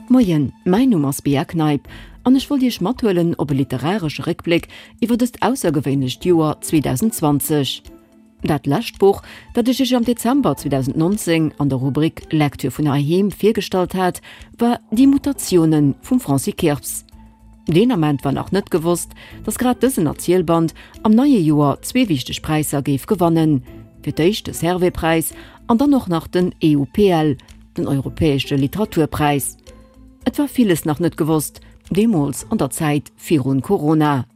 Moien, mäin Numm ass Bea Kneip an ech wollt Iech mathuelen op e literaresche Réckbléck iwwer dëst aussergewéinlecht Joer 2020. Dat lescht Buch, dat ech Iech am Dezember 2019 an der Rubrik Lecture vun heiheem virgestallt hat, war Die Mutationen vum Francis Kirps. Deen Ament war nach net gewosst, datt grad dësen Erzielband am neie Joer zwee wichteg Präisser géif gewannen, fir d'éischt de Servais-Präis an dann och nach den EUPL, den Europäesche Literaturpräis. Et war villes nach net gewosst, deemools an der Zäit virun Corona.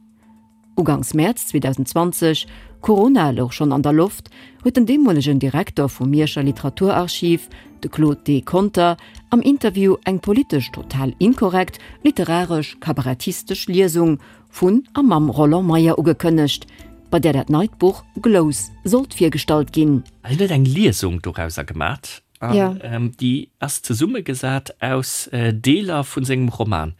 Uganks Mäerz 2020, Corona louch schonn an der Loft, huet den deemolegen Direkter vum Mierscher Literaturarchiv, de Claude D. Conter, am Interview eng politesch total inkorrekt, literaresch-kabarettistesch Liesung vun a mam Roland Meyer ugekënnegt, bei där dat neit Buch Glous sollt virgestallt ginn. Hien huet eng Liesung dorauser gemat an déi ass zesummegesat aus Deeler vu sengem Roman.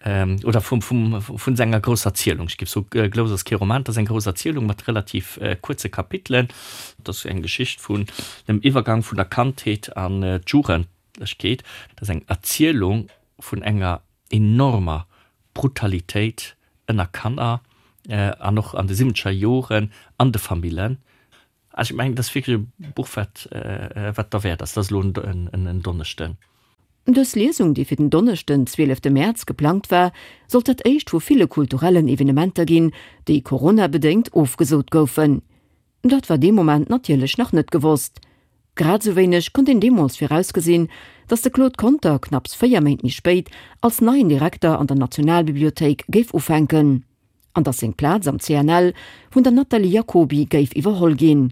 Oder vum, vum, vun senger grousser Erzielung. Ech géif soen, Glous ass kee Roman, et ass eng grouss Erzielung mat relativ kuerze Kapitelen. Et ass eng Geschicht vun dem Iwwergang vun der Kandheet an d'Jugendlechkeet. Et ass eng Erzielung vun enger enormer Brutalitéit ënner Kanner an och an de siwwenzeger Joren an de Famillen. Also ech mengen, dat ass wierklech e Buch, wat, wat derwäert ass. Dat ass elo en Donneschden. Dës Liesung, déi fir den Donneschden, 12 Mäerz geplangt war, sollt dat éischt vu ville kulturellen Evenementer ginn, déi Corona-bedéngt ofgesot goufen. Dat war dee Moment natierlech nach net gewosst. Grad esou wéineg konnt een deemools virausgesinn, datt de Claude Conter knapps 4 Méint méi spéit als neien Direkter an der Nationalbibliothéik géif ufänken. An datt seng Plaz am CNL vun der Nathalie Jacoby géif iwwerholl ginn.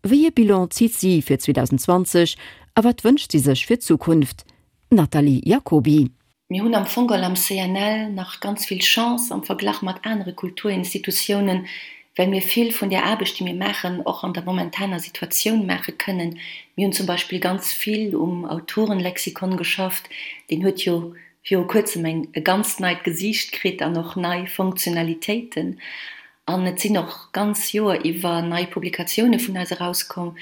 Wéi ee Bilan zitt si fir 2020 a wat wënscht si sech fir d'Zukunft? Nathalie Jacoby. Mir hunn am Fong geholl am CNL nach ganz vill Chance am Verglach mat anere Kulturinstitutiounen, well mir vill vun där Aarbecht, déi mir maachen, och an der momentaner Situatioun maache kënnen. Mir hunn zum Beispill ganz vill um Autorenlexikon geschafft, deen huet jo viru kuerzem eng e ganzt neit Gesiicht kritt an och nei Funktionalitéiten. An et sinn och ganz Joer iwwer nei Publikatioune vun eis erauskomm.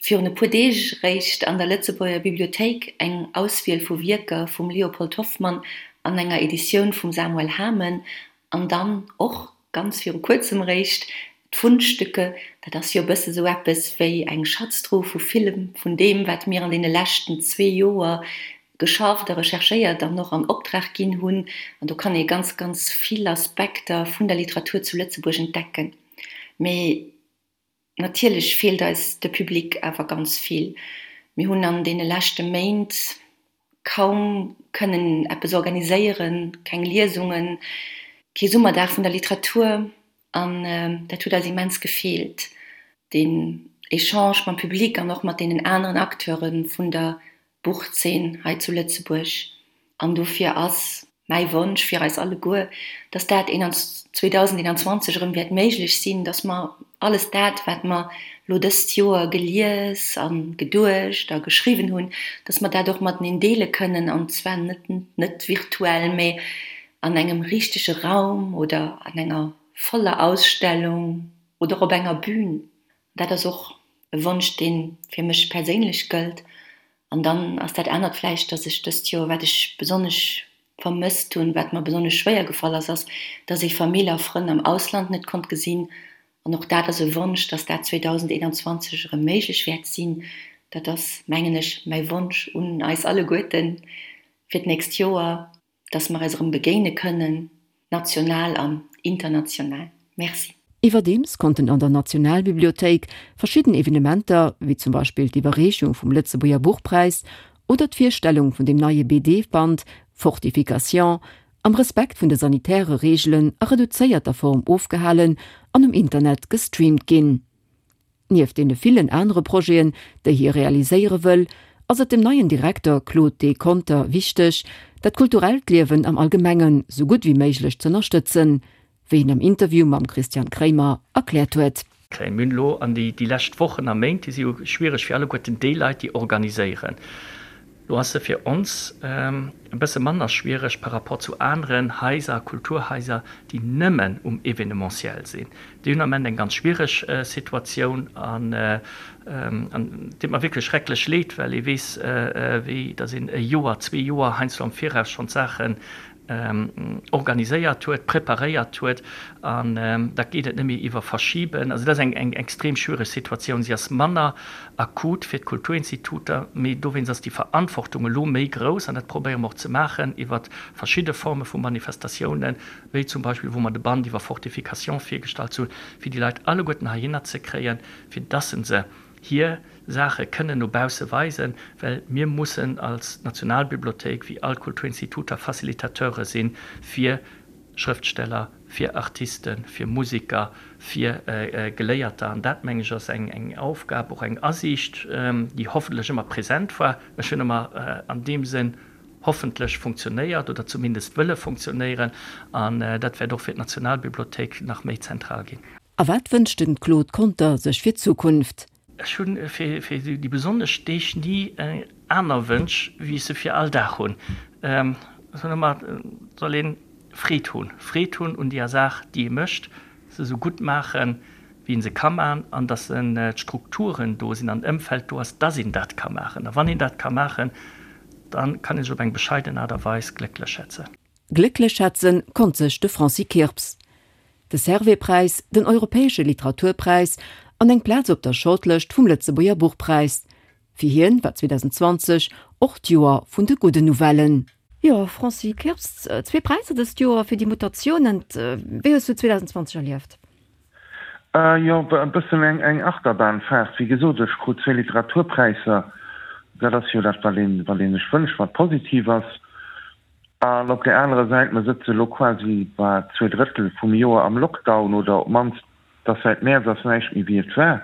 Virun e puer Deeg eréischt an der Lëtzebuerger Bibliothéik eng Auswiel vu Wierker vum Leopold Hoffmann an enger Editioun vum Samuel Hamen. An dann och ganz viru kuerzem eréischt d'Fundstücke. Dat ass jo e bësse sou eppes wéi eng Schatztruh vu villem vun deem, wat mir an deene leschten zwee Joer geschafft a recherchéiert an och an Optrag ginn hunn. An do kann ee ganz, ganz vill Aspekter vun der Literatur zu Lëtzebuerg entdecken. Mee natierlech feelt eis de Public awer ganz vill. Mir hunn an deene leschte Méint kaum kënnen eppes organiséieren, keng Liesungen, kee Summerdag vun der Literatur. An dat huet eis immens gefeelt, deen Echange mam Public an och mat deenen aneren Acteure vun der Buchzeen hei zu Lëtzebuerg. An dofir ass mäi Wonsch fir eis alleguer, dass dat 2021 erëm wäert méiglech sinn, dass mer alles dat, wat mer elo dëst Joer gelies a geduecht a geschriwwen hunn, dass mer dat och mateneen deele kënnen, an zwar net net virtuell, mä an engem richtege Raum oder an enger voller Ausstellung oder op enger Bühn. Dat ass och e Wonsch, dee fir mech perséinlech gëllt. An dann ass dat anert vläicht, dass ech dëst Joer, wat ech besonnesch vermësst hunn, wat mer besonnesch schwéier gefall ass, ass, dass ee Famill a Frënn am Ausland net konnt gesinn. An och dat ass e Wonsch, dass dat 2021 erëm méiglech wäert sinn. Dat ass, mengen ech, mäi Wonsch un eis alleguerten fir d'nächst Joer. dass mer eis erëm begéine kënnen, national an international. Merci. Iwwerdeems konnten an der Nationalbibliothéik verschidden Evenementer, wéi zum Beispill d'Iwwerreechung vum Lëtzebuerger Buchpräis oder d'Virstellung vun dem neie BD-Band Fortification, am Respekt vun de sanitäre Reegelen a reduzéierter Form ofgehalen an um Internet gestreamt ginn. Nieft deene villen anere Projeten, déi hie realiséiere wëll, ass et dem neien Direkter Claude D. Conter wichteg, dat kulturellt Liewen am Allgemengen sou gutt wéi méiglech z'ënnerstëtzen, wéi en am Interview mam Christian Kremer erkläert huet. Mir hunn elo an déi lescht Wochen a Méint, déi si jo schwiereg fir alleguerten déi Leit, déi organiséieren. Lo ass se fir ons e bësse manner schwiereg par rapport zu aneren Haiser, Kulturhaiser, déi nëmmen um Événementiel sinn. Déi hunn am Ament eng ganz schwiereg Situatioun an et deet mer wierklech schrecklech leed, well ee weess, wéi datt een e Joer, zwee Joer heiansdo am Viraus schonn d'Saachen organiséiert huet, preparéiert huet an da geet et net méi iwwer Verschiben. Also dat ass eng extrem schwiereg Situatioun. Si ass manner akut fir d'Kulturinstituter, mee dowéinst ass déi Verantwortung elo méi grouss an dat probéiere mer och ze maachen iwwer verschidde Forme vu Manifestatiounen, wéi zum Beispill wou mer de Band iwwer Fortification virgestallt hunn, fir déi Leit alleguerten heihinner ze kréien, fir dass se se hir Saache kënnen no bausse weisen, well mir mussen als Nationalbibliothéik, wéi all Kulturinstituter, Facilitateure si fir Schrëftsteller, fir Artisten, fir Musiker, fir Geléierter. An dat, meng ech, ass eng Aufgab, och eng Asiicht, déi hoffentlech ëmmer present war. Ech hunn ëmmer an deem Sënn hoffentlech funktionéiert oder zumindest wëlle funktionéieren. An dat wäert och fir d'Nationalbibliothéik nach méi zentral ginn. A wat wënscht den Claude Conter sech fir d'Zukunft? Ech hunn fir déi besonnesch Deeg ni aner Wënsch, wéi ech se fir all Dag hunn. Ech soen ëmmer, et soll een Freed hunn, Freed hunn un deeër Saach, déi ee mécht, se esou gutt maachen, wéi een se ka maachen, an datt d'Strukturen do sinn an d'Ëmfeld do ass, datt een dat ka maachen. A wann een dat ka maachen, da kann ee sech op eng bescheiden Aart a Weis glécklech schätzen. Glécklech schätzen konnt sech de Francis Kirps. De Servais-Präis, den Europäesche Literaturpräis an eng Plaz op der Shortlëscht vum Lëtzebuerger Buchpräis. Fir hien war 2020 och d'Joer vun de gudden Nouvellen. Jo, Francis Kirps, zwee Präisser dëst Joer fir déi Mutatiounen. Wéi hues du 2020 erlieft? Jo, e bëssen eng Achterbahnfahrt. Wéi gesot, ech krut zwee Literaturpräisser. Dat ass jo dat, wat een, wat ee sech wënscht, wat positiv ass. An op där anerer Säit, mer sëtze elo quasi bei zwee Drëttel vum Joer am Lockdown, oder op d'mannst, dass säit Mäerz ass näischt méi wéi et war.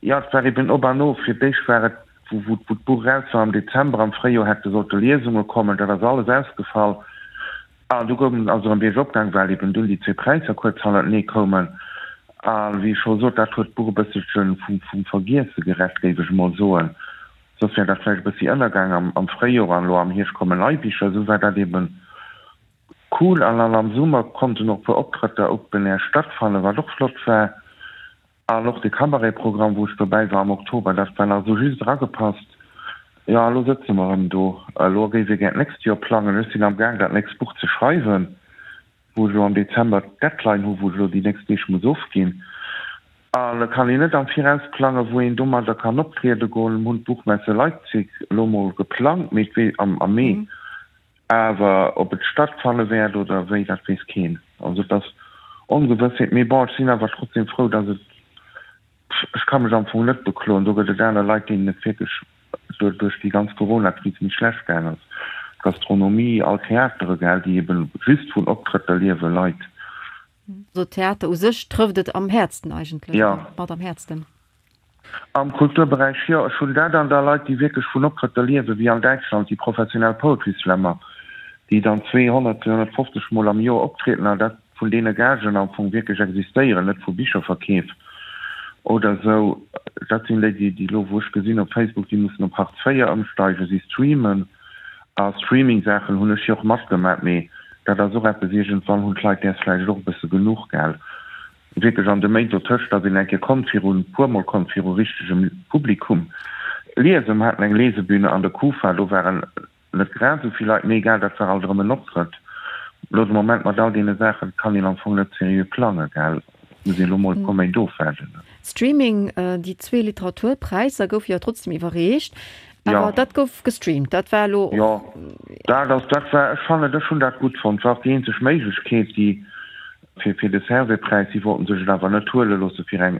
Jo, et war eben op an of. Fir d'éischt war et, wou d'Buch eraus war am Dezember, am Fréijoer hätte sollte Liesunge kommen, dat ass alles ausgefall. An du goung ass erëm biergop gaang, well eben dunn déi zwee Präisser kuerz hannertenee koumen. A wéi ech scho sot, dat huet d'Buch e bësselche vum Vergiesse gerett, géif ech emol soen. Soss wär dat vläicht e bëssi ënnergaang am Fréijoer an elo am Hierscht kommen nei Bicher. Esou war dat eben cool an an am Summer konnten och e puer Optrëtter open air stattfannen, wat och flott war. An och de Cabaret-Programm, wou ech dobäi war am Oktober, dat war nach esou just eragepasst. Jo, a lo sëtze mer erëm do. Elo géif ee gär d'nächst Joer plangen. Ech sinn am Gaang, dat nächst Buch ze schreiwen. wou ech elo am Dezember d'Deadline hu wou ech elo déi nächst Deeg muss ofginn. An et kann een net am Viraus plangen, wou een domadder kann optriede goen. Mir hunn d'Buchmesse Leipzig elo mol geplangt, mee et wee am am Mee. Awer ob et stattfanne wäert oder wéi, dat weess keen. Also et ass Ongewëssheet. Mee bon, ech sinn awer trotzdem frou, datt et, ech ka mech am Fong net bekloen, do gëtt et aner Leit, deenen et wierklech duerch déi ganz Corona-Kris méi schlecht gaang ass, d'Gastronomie, all Theatere, gell, déi eben just vun Optrëtter liewen, Leit. Also Theater u sech trëfft et am häertsten eigentlech, oder mat am häertsten. Am Kulturberäich, jo. Ech hunn dat an da Leit, déi wierklech vun Optrëtter liewen, wéi an Däitschland déi professionell Poetry Slammer, déi dann 200, 250 Mol am Joer optrieden an dat vun deene Gagen am Fong wierklech existéieren, net vu Bicherverkeef oder esou. Dat sinn déi, déi elo, wou ech gesinn op Facebook, déi mussen op Hartz IV ëmsteigen, si streamen. A Streaming-Saachen hunn ech jo och matgemat, mee dat ass och eppes, iergendwann hunn d'Leit däers vläicht och e bësse genuch, gell. Wierklech an de Méint dotëscht ass een eng Kéier konnt virun, puermol konnt viru richtegem Publikum liesen. Mer haten eng Lesebühne an der Kufa, do waren Net grad esou vill Leit, mee egal, dat war alt erëm en Optrëtt. Elo de Moment mat all deene Saachen kann een am Fong net seriö plangen, gell? Muss een elo mol e puer Méint ofwaarden. Streaming, Déi zwee Literaturpräisser goufe jo trotzdem iwwerreecht, awer dat gouf gestreamt. Dat war elo och. Jo, dat ass, dat war, ech fannen, ech hunn dat gutt fonnt. War och déi eenzeg Méiglechkeet, déi fir, fir de Servais-Präis. Si wollten sech et awer net huele loosse fir eng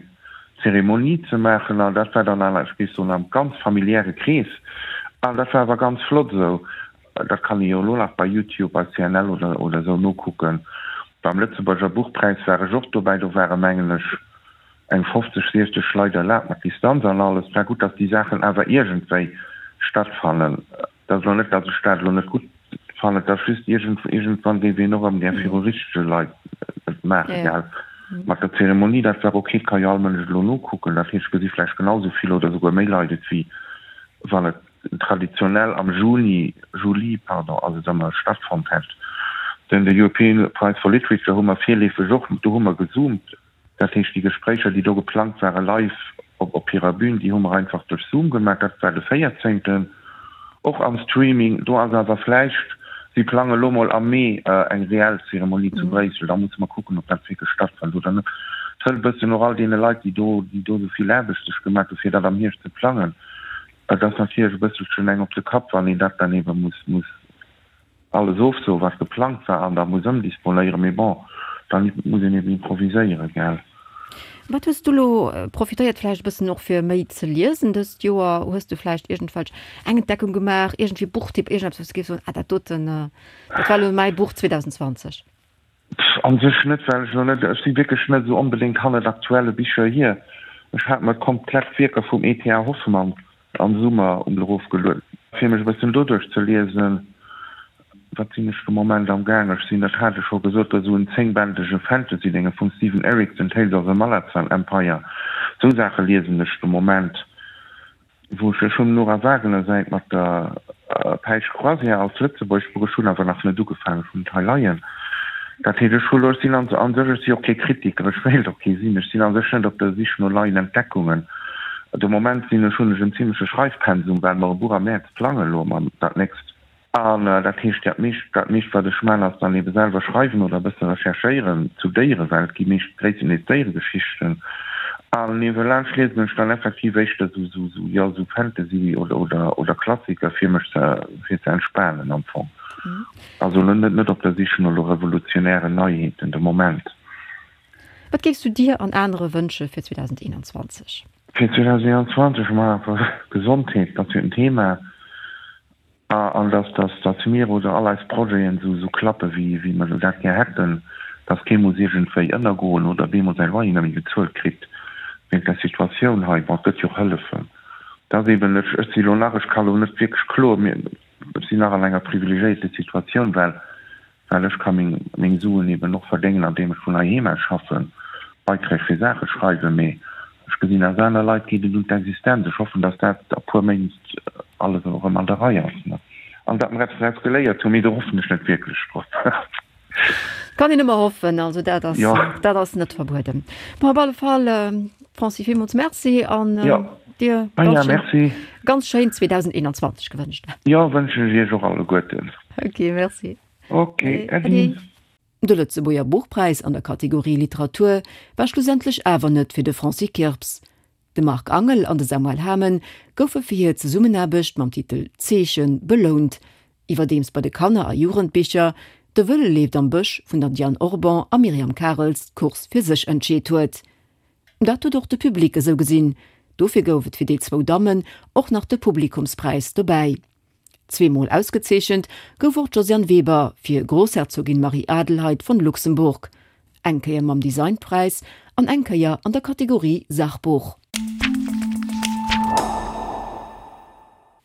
Zeremonie ze maachen an dat war dann awer, ech géif soen, am ganz familiäre Krees an dat war awer ganz flott esou. Dat kann ee jo elo nach bei Youtube, bei CNL oder oder esou nokucken. Beim Lëtzebuerger Buchpräis war ech och dobäi, do ware mengen ech eng 50, 60 Leit erlaabt mat Distanz an alles. Et war gutt, datt déi Saachen awer iergendwéi stattfannen. Et ass elo net, datt ech dat elo net gutt fannen, et ass just, iergend, iergendwann géif een och erëm gär viru richtege Leit et maachen, gell. Mat der Zeremonie, dat war ok, et ka jo all Mënsch elo nokucken, dat heescht, et gesi vläicht genau esou vill oder esouguer méi Leit et wéi wann et. traditionell am Juni, Juli, pardon, ass et ëmmer stattfonnt hätt. Den de European Prize for Literature hu mer virleefeg och, do hu mer gezoomt. Dat heescht, déi Gespréicher, déi do geplangt ware live op hirer Bühn, déi hu mer einfach duerch Zoom gemaach. Dat war de véierzéngten, och am Streaming. Do ass awer vläicht, si plange lo mol am Mee eng reell Zeremonie zu Bréissel, da musse mer kucken, ob dat wierklech stattfënnt oder net. Et hëlt e bëssen och all deene Leit, déi do, déi do esou vill Aarbecht sech gemaach hu fir dat am Hierscht ze plangen, et ass natierlech e bësselchen eng op de Kapp, wann een dat dann ebe muss, muss alles ofsoen, wat geplangt war, an da muss ëmdisponéieren. Mee bon, da muss een eben improviséieren, gell. Wat hues du elo profitéiert vläicht e bëssen och fir méi ze liesen dëst Joer? Hues du vläicht iergendwelch eng Entdeckung gemaach, iergendwéi Buchtipp, iergendeppes, wou s du géifs soen, ah dat doten, dat war elo mäi Buch 2020? Pff, an sech net, well ech elo net, ech si wierklech net esou onbedéngt hannert aktuelle Bicher hier. Ech hat mer d'komplett Wierker vum E.T.A. Hoffmann am Summer um erofgelueden, fir mech e bëssen doduerch ze liesen. Wat sinn ech de Moment am gaang? Ech sinn, dat hat ech scho gesot, esou en zéngbändege Fantasy-Dénge vum Steven Erikson, Tales of the Malazan Empire. Esou Saache liesen ech de Moment. Wou ech, ech hunn Nora Wagener säit mat der Päisch Croisière als Lëtzebuerg Buch, ech hunn awer nach net ugefaangen, ech hunn et hei leien. Dat heescht, ech hu lo, ech sinn an sech, ech si och kee Kritiker, ech wéilt och kee sinn, ech sinn a sech net op der Sich no neien Entdeckungen. De Moment sinn ech, hunn ech en zimleche Schreifpensum, well mer e Buch am Mäerz plangen elo mam dat nächst. An dat heescht, dat meescht, dat meescht wat ech man, ass dann ebe selwer schreiwen oder e bësse recherchéieren zu Déierewelt, gi meescht gréisstendeels Déieregeschichten. An niewelaanscht liesen ech dann effektiv éischter sou, sou, sou, jo, sou Fantasy oder, oder, oder Klassiker fir mech ze, fir ze entspanen am Fong. Also elo net, net op der Sich no elo revolutionären Neiheeten de Moment. Wat géifs du dir an anere wënsche fir 2021? Fir 2021, ma Gesondheet, dat ass jo en Thema. An dass, dass, dass mir oder all eis Projeten esou, esou klappe wéi, wéi mer dat gär hätten, dass kee muss iergendwéi ënnergoen oder bemol säi Loyer net méi bezuelt kritt wéinst der Situatioun hei. Bon, et gëtt jo och Hëllefen. Et ass eeben, ech, ech si elo nach, ech ka elo net wierklech kloen, mir, ech sinn nach an enger privilegiéierte Situatioun, well well ech ka meng meng Suen eben och verdéngen andeem ech vun heiheem aus schaffen, Beiträg fir Saache schreiwen, mee ech gesinn aus aner Leit geet et un d'Existenz. Ech hoffen, datt dat a puer Méint alles erëm an der Rei ass an datt mer eppes draus geléiert hunn, mee do hoffen ech net wierklech drop. Kann een ëmmer hoffen, also dat ass dat ass net verbueden. Bon, op alle Fall Francis, villmools Merci an dir ganz schéin 2021 gewënscht. Jo, wënschen ech iech och alleguerten. Ok, merci. Ok, Äddi. De Lëtzebuerger Buchpräis an der Kategorie Literatur war schlussendlech awer net fir de Francis Kirps. De Marc Angel an de Samuel Hamen goufe fir hir Zesummenaarbecht mam Titel Zeechen belount, iwwerdeems bei de Kanner a Jugendbicher De Wëlle leeft am Bësch vun der Diane Orban a Myriam Karels d'Course fir sech entscheet huet. Dat huet och de Public esou gesinn, dofir gouf et fir déi zwou Dammen och nach de Publikumspräis dobäi. Zweemol ausgezeechent gouf och d'Josiane Weber fir Großherzogin Marie-Adelheid von Luxemburg, eng Kéier mam Designpräis an eng Kéier an der Kategorie Sachbuch.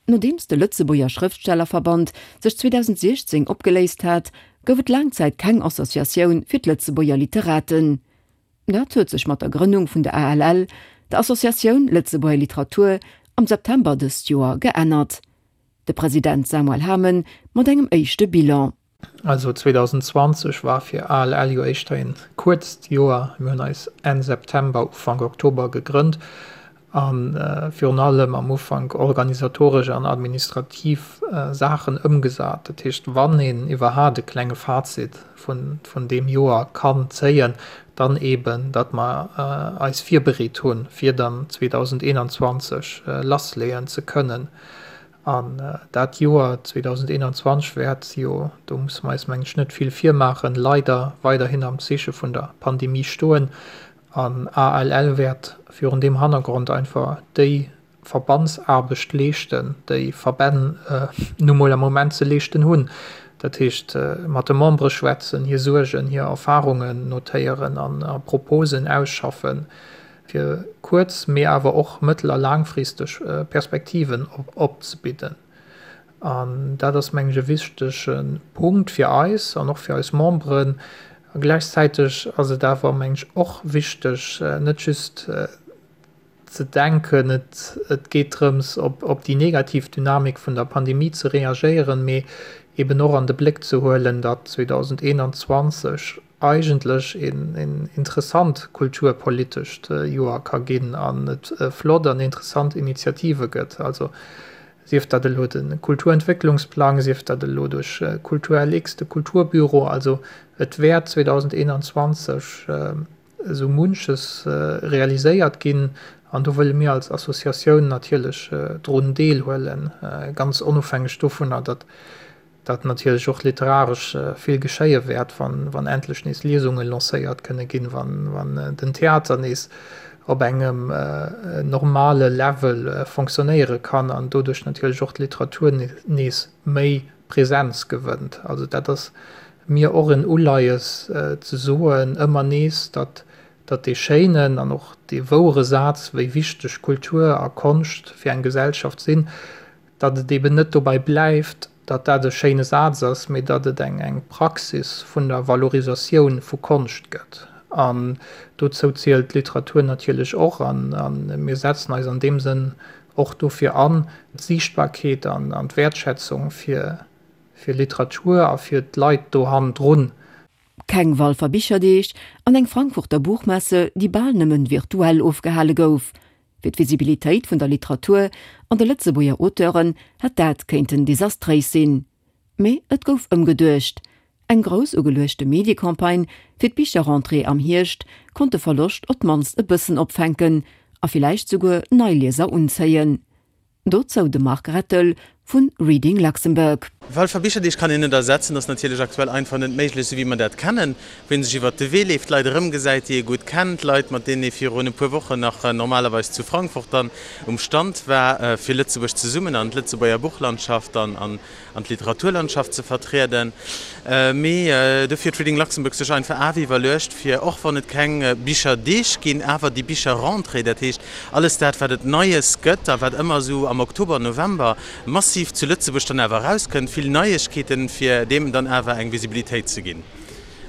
Nodeems de Lëtzebuerger Schrëftstellerverband sech 2016 opgeléist hat, gouf et laang Zäit keng Associatioun fir d'Lëtzebuerger Literaten. Dat huet sech mat der Grënnung vun der ALL, der Associatioun Lëtzebuerger Literatur, am September dëst Joer geännert. De President Samuel Hamen mat engem éischte Bilan. Also 2020 war fir ALL jo éischter een kuerzt Joer. Mir hunn eis Enn September, Ufank Oktober gegrënnt a virun allem am Ufank organisatoresch an administrativ Saachen ëmgesat. Dat heescht, wann een iwwerhaat e klenge Fazit vun deem Joer kann zéien, dann eeben, datt mer eis virbereet hunn, fir dann 2021 lassleeën ze kënnen. An dat Joer 2021 wäert jo, do musse mer eis, mengen ech, net vill virmaachen, leider weiderhin am Zeeche vun der Pandemie stoen. An ALL wäert virun deem Hannergrond einfach déi Verbandsaarbecht leeschten, déi Verbänn nu mol am Moment ze leeschten hunn. Dat heescht, mat de Membere schwätzen, hir Suergen, hir Erfarungen notéieren a Proposen ausschaffen, fir kuerz-, mee awer och mëttel a laangfristeg Perspektiven opzebidden. An dat ass, mengen ech, e wichtege Punkt fir eis an och fir eis Memberen. A gläichzäiteg ass et awer, mengen ech, och wichteg, net just. ze denken, et et geet drëms, op op déi negativ Dynamik vun der Pandemie ze reagéieren, mee eben och an de Bléck ze huelen, datt 2021 eigentlech een een interessant kulturpolitescht Joer ka ginn an et flott an interessant Initiative gëtt. Also sief dat elo de Kulturentwécklungsplang, sief dat elo duerch Kultur-LX, de Kulturbüro. Also et wäert 2021 esou munches realiséiert ginn an do wëlle mir als Associatioun natierlech drun deelhuelen, ganz onofhängeg dovunner, datt datt natierlech och literaresch vill geschéie wäert, wann wann endlech nees Liesunge lancéiert kënne ginn, wann wann den Theater nees op engem normale Level fonctionnéiere kann an doduerch natierlech och d'Literatur nees méi Präsenz gewënnt. Also dat ass mir och en Uleies ze soen, ëmmer nees, datt datt dee schéinen an och dee wouere Saz, wéi wichteg Kultur a Konscht fir eng Gesellschaft sinn, datt et eben net dobäi bleift, datt dat e schéine Saz ass, mee datt et eng eng Praxis vun der Valorisatioun vu Konscht gëtt. An dozou zielt d'Literatur natierlech och. An mir setzen eis an deem Sënn och dofir an, d'Siichtbarkeet an d'Wäertschätzung fir Literatur a fir d'Leit do hannendrun. Keng Walfer Bicherdeeg an eng Frankfurter Buchmesse, déi bal nëmmen virtuell ofgehale gouf. Fir d'Visibilitéit vun der Literatur an de Lëtzebuerger Auteuren hätt dat kéinten desastréis sinn. Mee et gouf ëmgeduecht. Eng grouss ugeluechte Mediecampagne fir d'Bicherrentrée am Hierscht konnt de Verloscht op d'mannst e bëssen opfänken a villäicht souguer nei Lieser unzéien. Dozou de Marc Rettel vu Reading Luxembourg. Walfer Bicherdeeg kann een net ersetzen, ass natierlech aktuell einfach net méiglech, esou wéi mer dat kennen, wou ee sech iwwert de Wee leeft, Leit erëmgesäit, déi ee gutt kennt, Leit, mat deenen ee virun e puer Wochen nach normalerweis zu Frankfurt dann um Stand war, fir Lëtzebuerg zesummen an d'Lëtzebuerger Buchlandschaft an an d'Literaturlandschaft ze vertrieden. Mee dofir huet Reading Luxembourg sech einfach awer iwwerluecht, fir och wann et keng Bicherdeeg ginn, awer déi Bicherrentrée, dat heescht alles dat, wat et Neies gëtt a wat ëmmer esou am Oktober, November massiv zu Lëtzebuerg dann awer erauskënnt, vill Neiegkeeten, fir deem dann awer eng Visibilitéit ze ginn.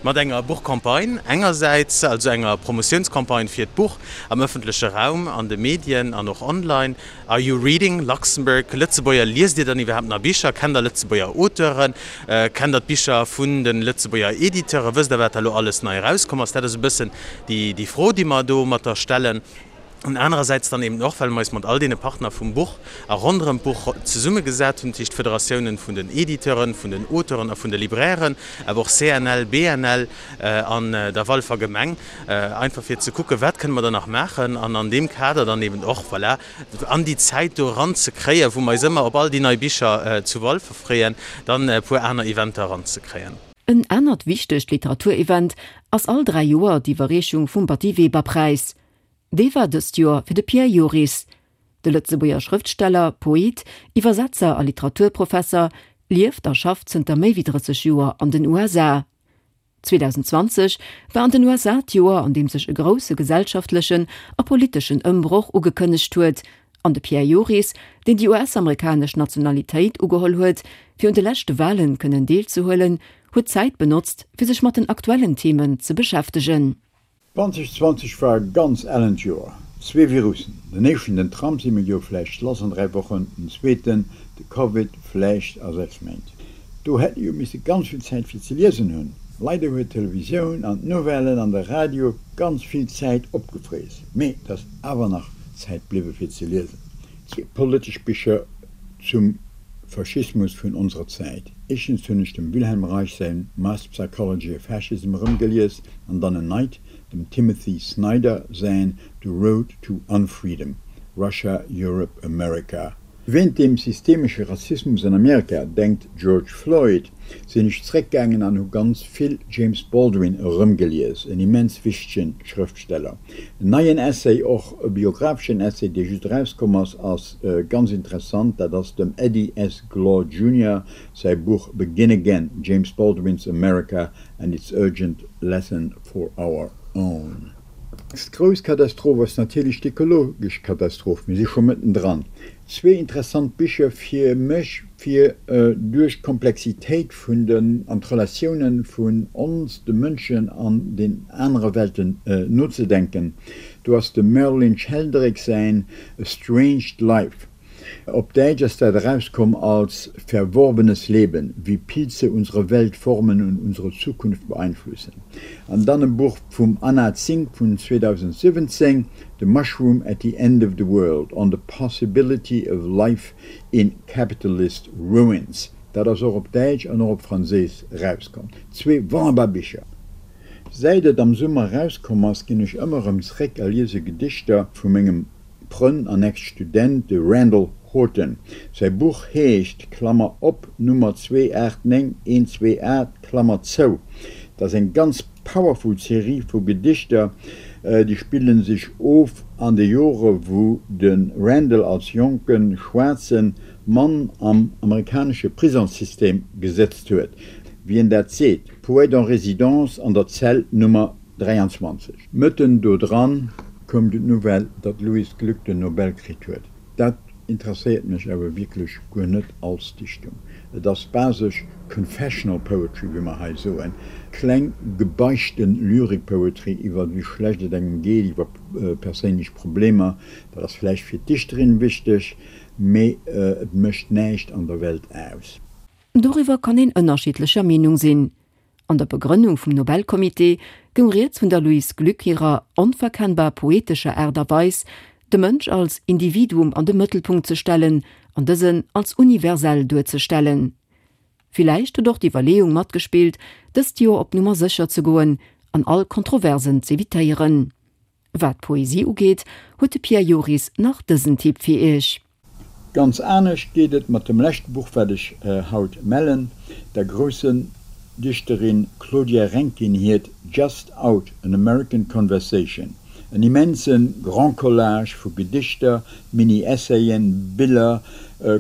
Mat enger Buchcampagne engersäits, also enger Promotiounscampagne fir d'Buch am ëffentleche Raum, an de Medien an och online, Are you reading Luxembourg? Lëtzebuerger, liest Dir dann iwwerhaapt nach Bicher? Kennt Der Lëtzebuerger Auteuren? Kennt Der d'Bicher vun de Lëtzebuerger Editeuren? Wësst Der, wat da elo alles nei erauskomm ass? Dat ass e bëssen déi Fro, déi mer domatter stellen. An anerersäits dann eben och, well mer eis mat all deene Partner vum Buch a ronderëm d'Buch zesummegesat hunn, dat heescht d'Federatiounen vun den Editeuren, vun den Auteuren a vun de Librairen, awer och CNL, BNL an der Walfer Gemeng, einfach fir ze kucken, wat kënne mer da nach maachen an an deem Kader dann eben och, voilà, an déi Zäit do eranzekréien, wou mer eis ëmmer op all déi nei Bicher zu Walfer freeën, dann e puer aner Eventer eranzekréien. En anert wichtegt Literaturevent ass all 3 Joer d'Iwwerreechung vum Batty-Weber-Präis. Dee war dëst Joer fir de Pierre Joris. De Lëtzebuerger Schrëftsteller, Poet, Iwwersetzer a Literaturprofesser lieft a schafft zënter méi wéi 30 Joer an den USA. 2020 war an den USA d'Joer, an deem sech e grousse gesellschaftlechen a politeschen Ëmbroch ugekënnegt huet, an de Pierre Joris, deen déi US-amerikanesch Nationalitéit ugeholl huet, fir un de leschte Walen kënnen deelzehuelen, huet d'Zäit benotzt, fir sech mat den aktuellen Themen ze beschäftegen. 2020 war e ganz ellent Joer. Zwee Virussen, den éischten, den Trump, si mir jo vläicht lass an 3 Wochen, den zweeten, de Covid, vläicht a 6 Méint. Do hätt ee jo misse ganz vill Zäit fir ze liesen hunn. Leider huet d'Televisioun an d'Nouvellen an de Radio ganz vill Zäit opgefriess, mee et ass awer nach Zäit bliwwe fir ze liesen. Zwee politesch Bicher zum Faschismus vun onserer Zäit. Éischtens hunn ech dem Wilhelm Reich säin Mass Psychology of Fascism erëmgelies an dann en neit, dem Timothy Snyder säin The Road to Unfreedom, Russia, Europe, America. Wéint dem systemesche Rassismus an Amerika, denkt George Floyd, sinn ech zréckgaangen an hu ganz vill James Baldwin erëmgelies, en immens wichtegen Schrëftsteller. En neien Essay, och e biographeschen Essay, dee just erauskomm ass, ass ganz interessant, dat ass dem Eddie S. Glaude Junior säi Buch Begin Again, James Baldwin's America and its Urgent Lesson for Our Own. D'grouss Katastroph ass natierlech d'ökologesch Katastroph. Mir si scho mëttendran. Zwee interessant Bicher fir mech, fir duerch d'Komplexitéit vun den an d'Relatiounen vun ons, de Mënschen an den anere Welten nozedenken. Do ass dem Merlin Sheldrake säin A Stranged Life. Op Däitsch ass dat erauskomm als Verworbenes Leben, wie Pilze unsere Welt formen und unsere Zukunft beeinflussen. An dann e Buch vum Anna Tsing vun 2017, The Mushroom at the End of the World, On the Possibility of Life in Capitalist Ruins. Dat ass och op Däitsch an och op Franséisch erauskomm. Zwee wonnerbar Bicher. Säit et am Summer erauskomm ass, ginn ech ëmmer erëm zréck a liese Gedichter vu mengem Frënn an Ex-Student, de Randall Horton. Säi Buch heescht, Klammer op, Nummer 289128, Klammer zou. Dat ass eng ganz powerful Serie vu Gedichter, déi spille sech of an de Jore wou de Randall als jonke schwaarze Mann am amerikanesche Prisongssystem gesëtzt huet, wéi en dat seet, Poète en résidence an der Zell Nummer 23. Mëtten do dran koum du d'Nouvelle, datt d'Louise Glück den Nobel kritt huet. Dat interesséiert mech awer wierklech guer net als Dichtung. Et ass basesch confessional poetry, wéi mer hei soen, kleng gebeichten Lyrik-Poetry iwwer wéi schlecht et engem geet, iwwer perséinlech Problemer. Dat ass vläicht fir d'Dichterin wichteg, mee et mécht näischt an der Welt aus. Doriwwer kann een ënnerschiddlecher Meenung sinn. An der Begrënnung vum Nobelcomité goung rieds vun der Louise Glück hirer onverkennbar poetescher Aart a Weis, de Mënsch als Individuum an de Mëttelpunkt ze stellen an dësen als universell duerzestellen. Villäicht huet och d'Iwwerleeung matgespillt, dëst Joer op Nummer sécher ze goen an all Kontroversen z'evitéieren. Wat d'Poesie ugeet, huet de Pierre Joris nach dësen Tipp fir Iech. Ganz anescht geet et mat dem leschte Buch wat ech haut mellen, der groussen Dichterin Claudia Rankine hiert Just Out, An American Conversation. En immense Grand Collage vu Gedichter, Mini-Essayen, Biller,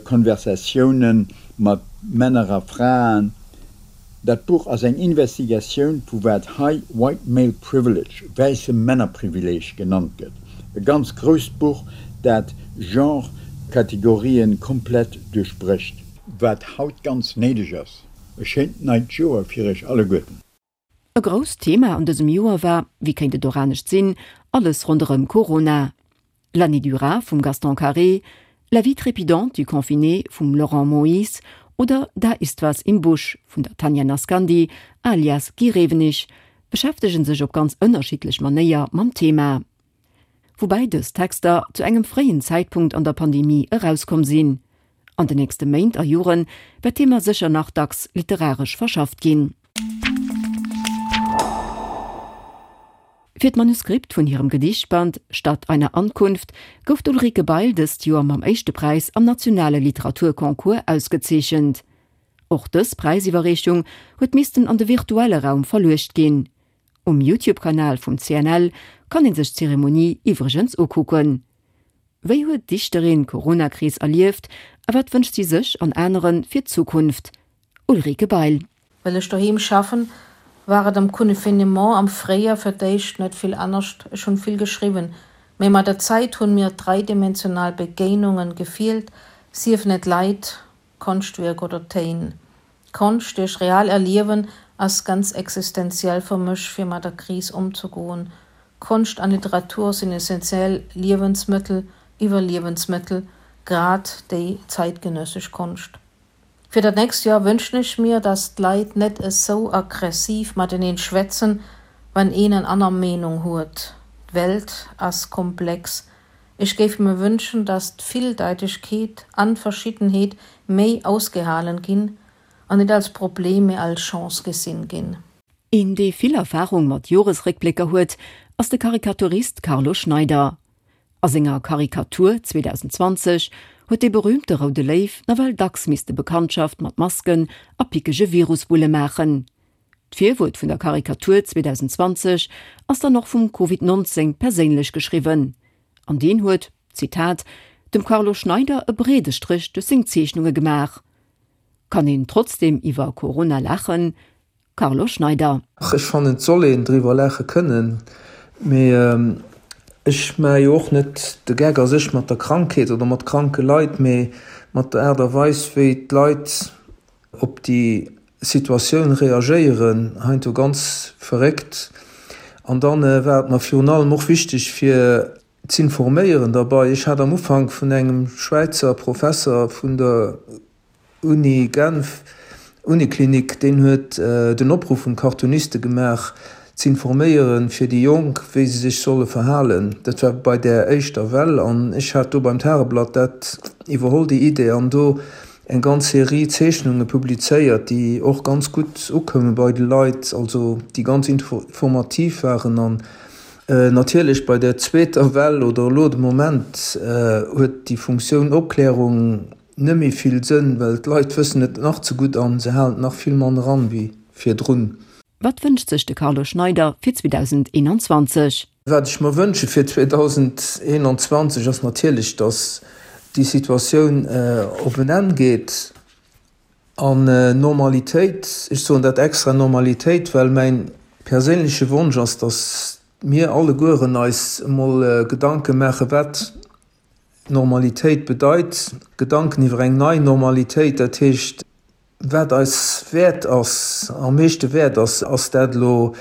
Konversatiounen mat Männer a Fraen, Dat Buch ass eng Investigatioun vu wat hei White Male Privilege, wäisse Männerprivileeg, genannt gëtt. E ganz grousst Buch, dat Genre-Kategorien komplett duerchbrécht. Wat haut ganz néideg ass. E schéint neit Joer fir iech alleguerten. E grousst Thema an dësem Joer war, wéi kéint et och anescht sinn, alles ronderëm Corona. L'année du rat vum Gaston Carré, La vie trépidante du confiné vum Laurent Moyse oder Da ist was im Busch vun der Tanja Naskandy alias Guy Rewenig beschäftege sech op ganz ënnerschiddlech Manéier mam Thema. Woubäi dës Texter zu engem fréien Zäitpunkt an der Pandemie erauskomm sinn. An de nächste Méint a Jore wäert d'Thema sécher nach dacks literaresch verschafft ginn. Fir d'Manuskript vun hirem Gedichtband Statt einer Ankunft gouf d'Ulrike Bail dëst Joer mam éischte Präis am nationale Literaturconcours ausgezeechent. Och dës Präisiwwerreechung huet missten an de virtuelle Raum verluecht ginn. Um Youtube-Kanal vum CNL kann ee sech d'Zeremonie iwwregens ukucken. Wéi huet d'Dichterin d'Corona-Kris erlieft a wat wënscht si sech an anere fir d'Zukunft? Ulrike Bail. Well ech doheem schaffen, war et am Confinement am Fréijoer fir d'éischt net vill anescht, ech hunn vill geschriwwen, mee mat der Zäit hunn mir dreidimensional Begéinungen gefeelt, siefen et Leit, Konschtwierk oder Téin. Konscht duerch real Erliewen ass ganz existenziell fir mech fir mat der Kris ëmzegoen. Konscht an Literatur sinn essentiell Liewensmëttel, Iwwerliewensmëttel, grad déi zeitgenössesch Konscht. Fir dat nächst Joer wënschen ech mir, dass d'Leit net esou aggressiv mateneen schwätzen, wann een en anner Meenung huet. D'Welt ass komplex. Ech géif mir wënschen, dass d'Villdeitegkeet an d'Verschiddenheet méi ausgehalen ginn an net als Problem, mee als Chance gesinn ginn. Een, dee vill Erfarung mat Joresréckblécker huet, ass de Karikaturist Carlo Schneider. A senger Karikatur 2020 huet dee berüümte Roude Léiw nawell dacks misste Bekanntschaft mat Masken a pickege Virusbulle maachen. D'Virwuert vun der Karikatur 2020 ass dann och vum Covid 19 perséinlech geschriwwen. An deen huet, Zitat, dem Carlo Schneider e breede Stréch duerch seng Zeechnunge gemaach. Kann een trotzdeem iwwer Corona laachen? Carlo Schneider. Ach, ech fannen, et soll een driwwer laache kënnen. Mee ech maache jo och net de Geck a sech mat der Krankheet oder mat kranke Leit, mee mat der Aart a Weis, wéi d'Leit op déi Situatioun reagéieren, heiansdo ganz verréckt. An dann war et mer virun allem och wichteg, fir z'informéieren derbei. Ech hat am Ufank vun engem Schwäizer Professer vun der Uni Genf, Uniklinik, deen huet den Opruff un d'Cartooniste gemaach, z'informéieren fir déi Jonk, wéi se sech solle verhalen. Dat war bei där éischter Well an ech hat do beim Tageblatt dat iwwerholl, déi Idee, an do eng ganz Serie Zeechnunge publizéiert, déi och ganz gutt ukoume bei de Leit, also déi ganz informativ waren. An natierlech bei der zweeter Well oder elo de Moment huet déi Funktioun Opklärung net méi vill Sënn, well d'Leit wëssen et nach ze gutt an se halen et nach vill manner an wéi virdrun. Wat wënscht sech de Carlo Schneider fir 2021? Wat ech mer wënsche fir 2021 ass natierlech, datt déi Situatioun op en Enn geet an Normalitéit, ech soen dat extra Normalitéit, well mäin perséinleche Wonsch ass, datt mir allegueren eis emol Gedanke maache wat Normalitéit bedeit, Gedanken iwwer eng nei Normalitéit, dat heescht, wat eis wäert ass, am meeschte wäert ass, ass dat elo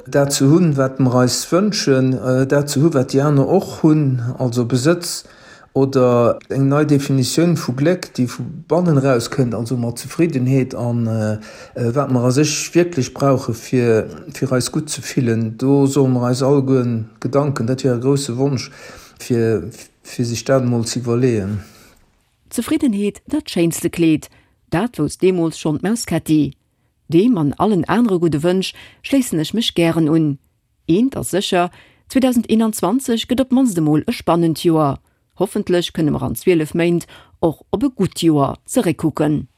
dat ze hunn, wat mer eis wënschen, dat ze hu wat déi aner och hunn, also Besëtz, oder eng nei Definitioun vu Gléck, déi vu bannen eraus kënnt, also mat Zefriddenheet a wat mer a sech wierklech brauche fir fir eis gutt ze fillen. Do solle mer eis allegueren Gedanken, dat wier e grousse Wonsch, fir fir sech dat emol ze iwwerleeën. Zefriddenheet dat schéinste Kleed, dat wousst deemools schonn d'Maus Ketti. Deem an allen anere gudde Wënsch schléissen ech mech gären un. Eent ass sécher, 2021 gëtt op d'mannst emol e spannend Joer. Hoffentlech kënne mer an 12 Méint och op e gutt Joer zeréckkucken.